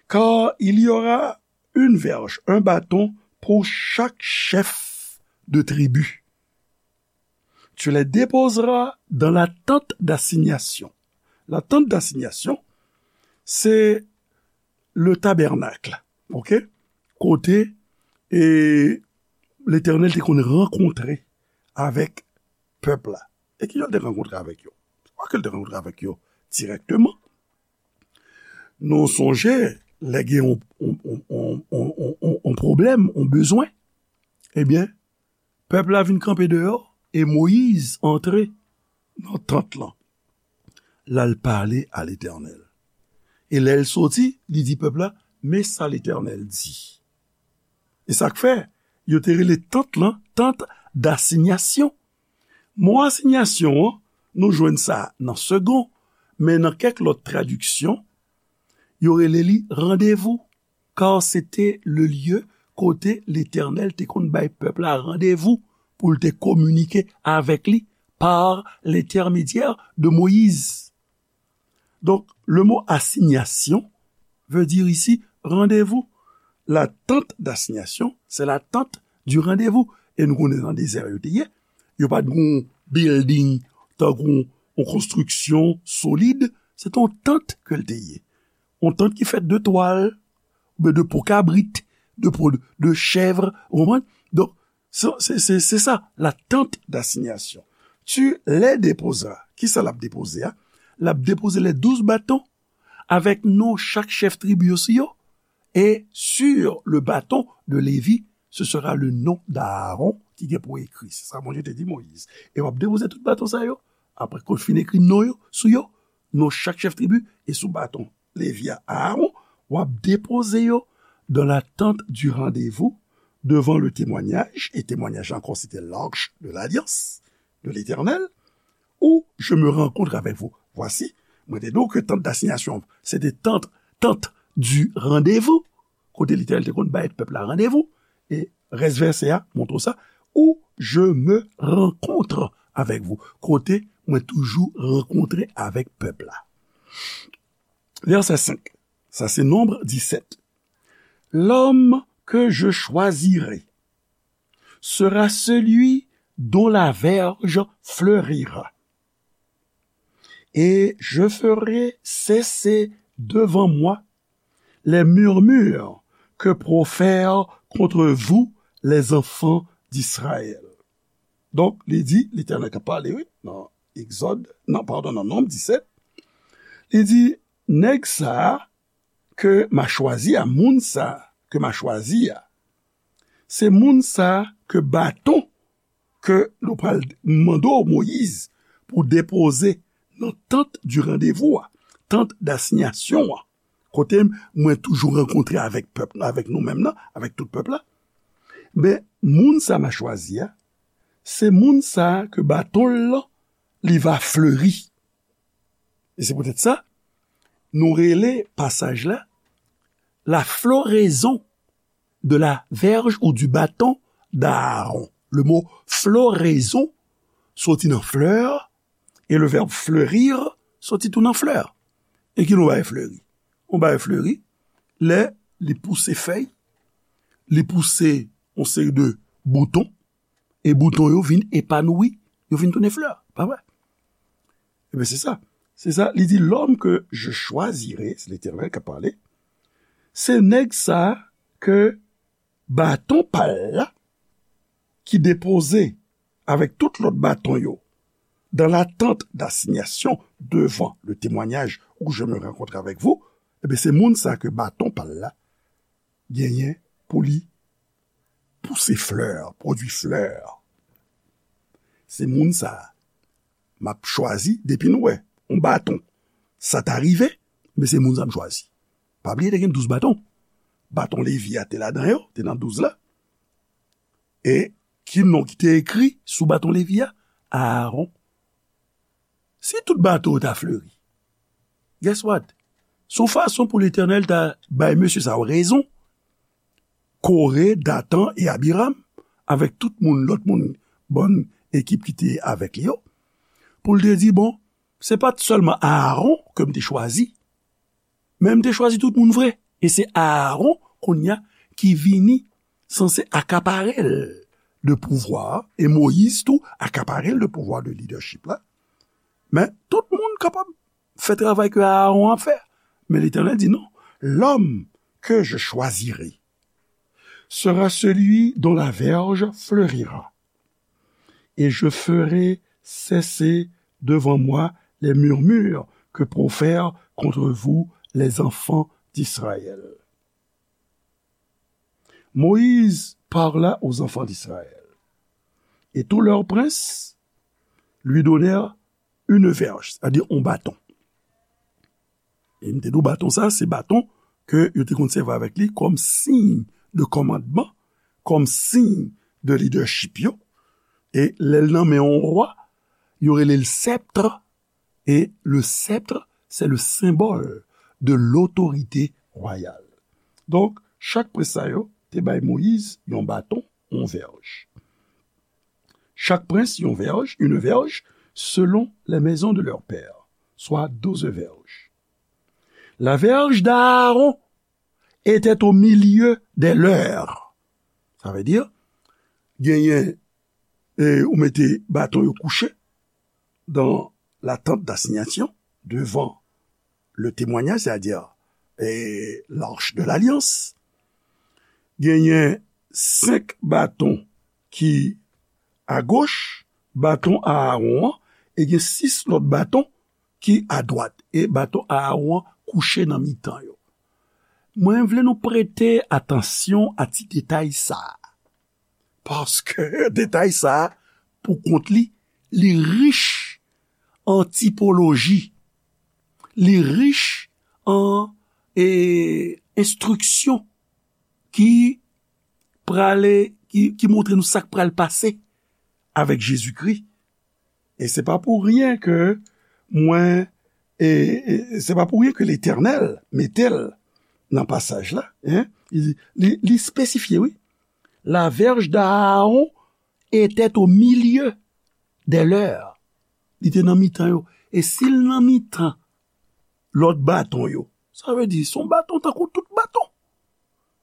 Car il y aura une verge, un bâton pour chaque chef de tribu. Tu les déposeras dans la tente d'assignation. La tente d'assignation, se le tabènak, ok? Kote e Letènèl te konn rankontre avèk pèp la. E kijan l te rankontre avèk yo? Se pa ke l te rankontre avèk yo dirèkteman. Nou sonje, lè gen yon, yon, yon pwoblèm, yon bezwen, ebyen, pèp la vin kanpe deyò e Moyiz antre nan tant lan. L al pale a Letènèl. E lè l soti, li di pèp la, men sa Letènèl di. E sa k fè, yo te rele tant lan, tant dasinyasyon. Mo asinyasyon an, nou jwenn sa nan Segond, men nan kèk lòt tradiksyon, yo rele li randevou, car c'était le lieu kote Letènèl te konn bay pèp la randevou pou l te kominike avèk li par l'intermédiaire de Moïse. Donk, le mo asinyasyon veut dire ici rendez-vous. La tente d'assignation, c'est la tente du rendez-vous. E nou konnen nan dezè yo te ye. Yo pa t gon building, tankou yon konstriksyon solid. Se t yon tant ke l te ye. Yon tant ki fèt de twal, oubyen de po kabrit, de po de chèv, ou konprann? Donk, se, se, se, se sa, la tente d'assignation. Tu les déposeras. Kisa l ap depoze a? L ap depoze les douze bâtons avec non chak chèf tribi yo sou yo. Et sur le bâton de Lévi, ce sera le nom d'Aaron ki gen pou ekri. Se sa Bondye te di Moyiz. E w ap depoze tout baton sa yo, apre ke w fin ekri non yo sou yo, non chak chèf tribi, e sou baton Levi a, Aaron, w ap depoze yo dans la tente du rendez-vous, devant le témoignage, e temwanyaj la ankò, se te l'arche de l'alliance de l'Éternel, où je me rencontre avec vous. Voici, mwen te di w ke tant d'assignation, se te tant, tant du rendez-vous, kote Letènèl te konn bay pèp la randevou, e rès vèsè a montre w sa, où je me rencontre avec vous, kote mwen toujou rankontre avèk pèp la. Vèsè senk, sa se Nonb disèt. L'homme que je choisirai sera celui dont la verge fleurira. Et je ferai cesser devant moi les murmures que profèrent contre vous les enfants d'Israël. Donk, li di, Letènèl k ap pale, wi, nan Egzòd, nan, padon, nan Nonb disèt, li di, nèg sa a ke m a chwazi a, moun sa a ke m a chwazi a, se moun sa a ke baton ke nou pral mande w, Moyiz, pou depoze nan tant du rendez-vous a, tant d'assignation an, kote mwen toujou rankontre avèk pèp, avèk nou menm nan, avèk tout pèp la. Men, moun sa m a chwazi a, se moun sa ke baton l lan, li va fleri. E se poutèt sa, nou rele pasaj la, la floraison de la verge ou du bâton d'Aaron. Le mo floraison soti nan flè, e le verbe fleurir soti tou nan flè. E ki nou bay fleri? Nou bay fleri lè li pouse fèy, li pouse yon seri de bouton, e bouton yo vin epanoui, yo vin tounen flè, pa vre? Ebyen, se sa. Se sa, li di, l'homme que je choisirai, se Letènèl k ap pale, se nèg sa ke baton pa l la, ki depoze avèk tout lòt baton yo dans la tente d'assignation devant le témoignage où je me rencontre avec vous, ebyen, se moun sa ke baton pa l la genyen pou li pouse flè, pwodui flè. Se moun sa a m ap chwazi depi nou wè yon baton. Sa ta rive, men se moun sa a m chwazi. Pa bliye, te gen douz baton. Baton Levi a te ladan yo, te nan douz la. E ki non ki te ekri sou baton Levi a? Aaron. Si tout baton yo ta fleri, guess what? Se yon fason pou Letènèl ta bay mesye sa yo rezon, Kore, Datan e Abiram, avèk tout moun, lòt moun, bann ekip ki te avèk li yo, pou l te di, bon, se pa t sèlman Aaron ke m te chwazi, men m te chwazi tout moun vre. E se Aaron, kounye a, ki vini sanse akapare l de pouvwa, e Moyiz tou akapare l de pouvwa de lidèchip la. Men tout moun kapab fè travay ke Aaron ap fè. Men Letènèl di non, l'homme que je choisirai sera celui dont la verge fleurira. Et je ferai cesser devant moi les murmures que profèrent contre vous les enfants d'Israël. Moïse parla aux enfants d'Israël, et tous leurs princes lui donnèrent une verge, c'est-à-dire un bâton. E m te di w baton sa, se baton ke yo te konn sèvi avèk li kòm siy de kòmandman, kòm siy de lidèchip yo. E lè l nan men yon wa, yo rele l sèpt. E le sèpt, c'est le symbole de l'autorité royale. Donk, chak prens sa yo te bay Moyiz yon baton, yon vèj. Chaque prince yon verge, une verge, selon les maisons de leurs pères, soit douze verges. La verge d'Aaron était au milieu des leurs. Sa vle di, genyen, e, ou mete baton yo kouche dans la tente d'assignation, devant le témoignage, c'est-à-dire, e, l'arche de l'alliance. Genyen senk baton ki agoch, baton Aaron an, e gen sis lòt baton ki adwat, e baton Aaron an kouche nan mitan yo. Mwen vle nou prete atansyon a ti detay sa a, paske detay sa a, pou kont li, li rich an tipoloji, li rich an, e, enstriksyon ki prale, ki, ki montre nou sa k pral pase avèk Jezikri. E se pa pou ryen ke mwen, e, e se pa pou ryen ke Letènèl mete l nan pasaj la, en. Li, li, li espesifye, wi. La verge d'Aaron était au milieu des leurs. Li te nan mitan yo. E si l nan mitan lòt baton yo, sa vle di, se yon baton tankou tout baton.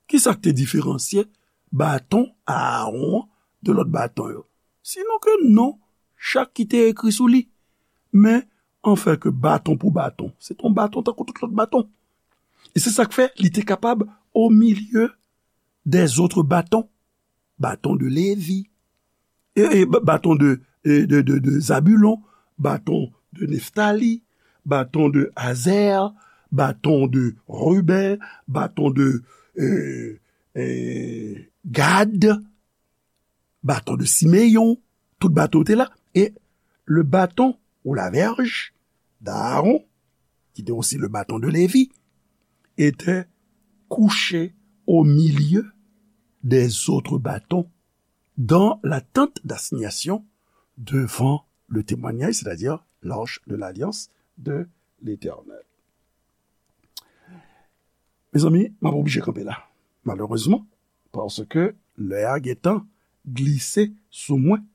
Kisa k te diferansye baton Aaron an de lòt baton yo? Sinon ke non chak ki te ekri sou li. Men, anfen ke baton pou baton, se te yon baton tankou tout lòt baton. E se sa k fè li te kapab au milieu des autres bâtons. Bâton de Lévi, e, e, ba-, bâton de, e, de, de, de Zabulon, bâton de Neftali, bâton de Azer, bâton de Ruben, bâton de, e, e, Gad, bâton de Simeyon, tout bâton te la. E le bâton ou la verge d'Aaron, qui était aussi le bâton de Lévi, était couché au milieu des autres bâtons dans la tente d'assignation devant le témoignage, c'est-à-dire l'arche de l'alliance de l'Éternel. Mezanmi, m ap oblije kanpe la, malerezman, paske lè a gentan glise sou mwen.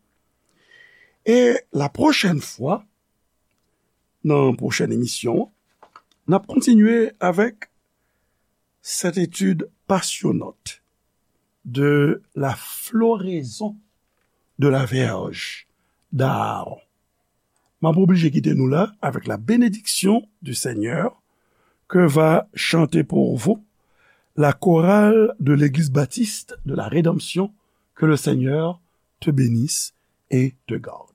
E la pwochèn fwa, nan pwochèn emisyon an, n ap kontinye avèk cette étude passionnante de la floraison de la verge d'Aaron. M ap oblije kite nou la avec la bénédiction du Seigneur que va chanter pour vous La chorale de l'Église Baptiste de la Rédemption, que le Seigneur te bénisse et te garde.